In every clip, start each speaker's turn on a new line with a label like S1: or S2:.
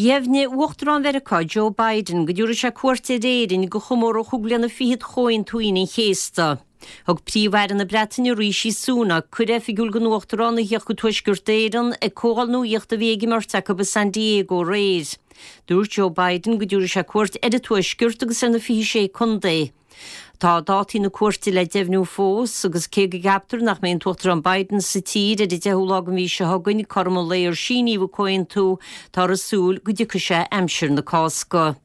S1: Dheimhnigh Uachtarán Mheiriceá Joe Biden go dtabharfaidh sé cuairt ar Éirinn do chomóradh chúig bliana fichead Chomhaontú Aoine an Chéasta. Thug Príomh-Aire na Breataine Rishi Sunak cuireadh oifigiúil don Uachtarán a theacht go Tuaisceart Éireann ag comhdháil nuachta a bhí ag an mbeirt acu i San Diego aréir. Dúirt Joe Biden go dtabharfaidh sé cuairt ar an Tuaisceart agus ar na 26 contae. Tá dátaí na cuairte le deimhniú fós agus cé go gceaptar nach mbeidh an tUachtarán Biden sa tír ar an 10ú lá den mhí seo chugainn, cothrom an lae ar síníodh an comhaontú, táthar ag súil go dtiocfaidh sé aimsir na Cásca.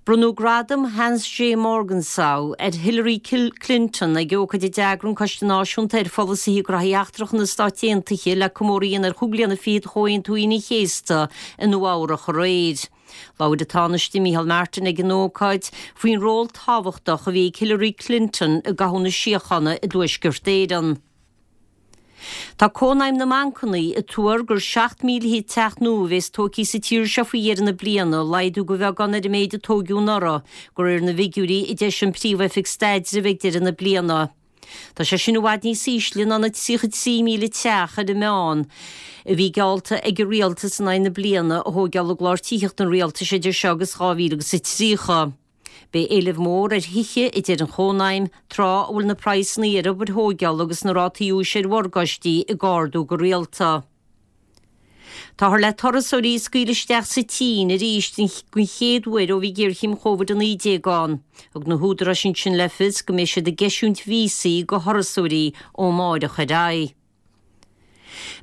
S1: Bronnadh Gradam Hans J. Morgenthau ar Hillary Clinton ag ócáid a d'eagraigh an Coiste Náisiúnta ar Pholasaithe Gnóthaí Eachtracha na Stát Aontaithe le comóradh a dhéanamh ar chúig bliana fichead Chomhaontú Aoine an Chéasta i Nua Eabhrach aréir. Labhair an Tánaiste Micheál Martin ag an ócáid faoin ról tábhachtach a bhí ag Hillary Clinton i gcothú na síochána i dTuaisceart Éireann. Tá Cónaidhm na mBancanna ag tuar gur 7,000 teach nua a bhéas tógtha sa tír seo faoi dheireadh na bliana, laghdú de bheagán ar an méid a tóigeadh anuraidh, de réir na bhfigiúirí a d'eisigh an Príomh-Oifig Staidrimh ag deireadh na bliana. Tá sé sin i bhfad níos ísle ná na 33,000 teach ar an meán a bhí geallta ag an rialtas in aghaidh na bliana a thóigeáil i gclár tithíochta an rialtais idir seo agus 2030. Beidh éileamh mór ar thithe, a deir an Chónaidhm, tráth a bhfuil na praghsanna ar obair thóigeála agus na rátaí úis ar mhorgáistí ag ardú go rialta. Táthar le turasóirí a scaoileadh isteach sa tSín arís den chéad uair ó bhí géarchéim Covid-19 ann. Thug na húdaráis ansin le fios go mbeidh siad ag eisiúint víosaí do thurasóirí ó amáireach ar aghaidh.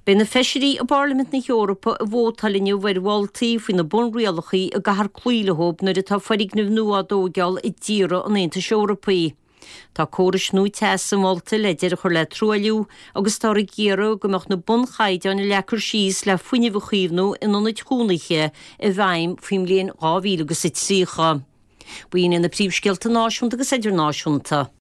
S1: Beidh na feisirí i bPairlimint na hEorpa ag vótáil inniu ar mholtaí faoi na bunrialacha a gcaithfear cloí leo nuair atá foirgnimh nua á dtóigeáil i dtíortha an Aontais Eorpaigh. Tá córais nua teasa molta le deireadh a chur le truailliú agus táthar ag iarraidh go mbeadh na bunchaighdeáin a leagtar síos le fuinneamh a chaomhnú in ionaid chónaithe i bhfeidhm faoin mbliain 2030. B'in iad na príomhscéalta náisiúnta agus idirnáisiúnta.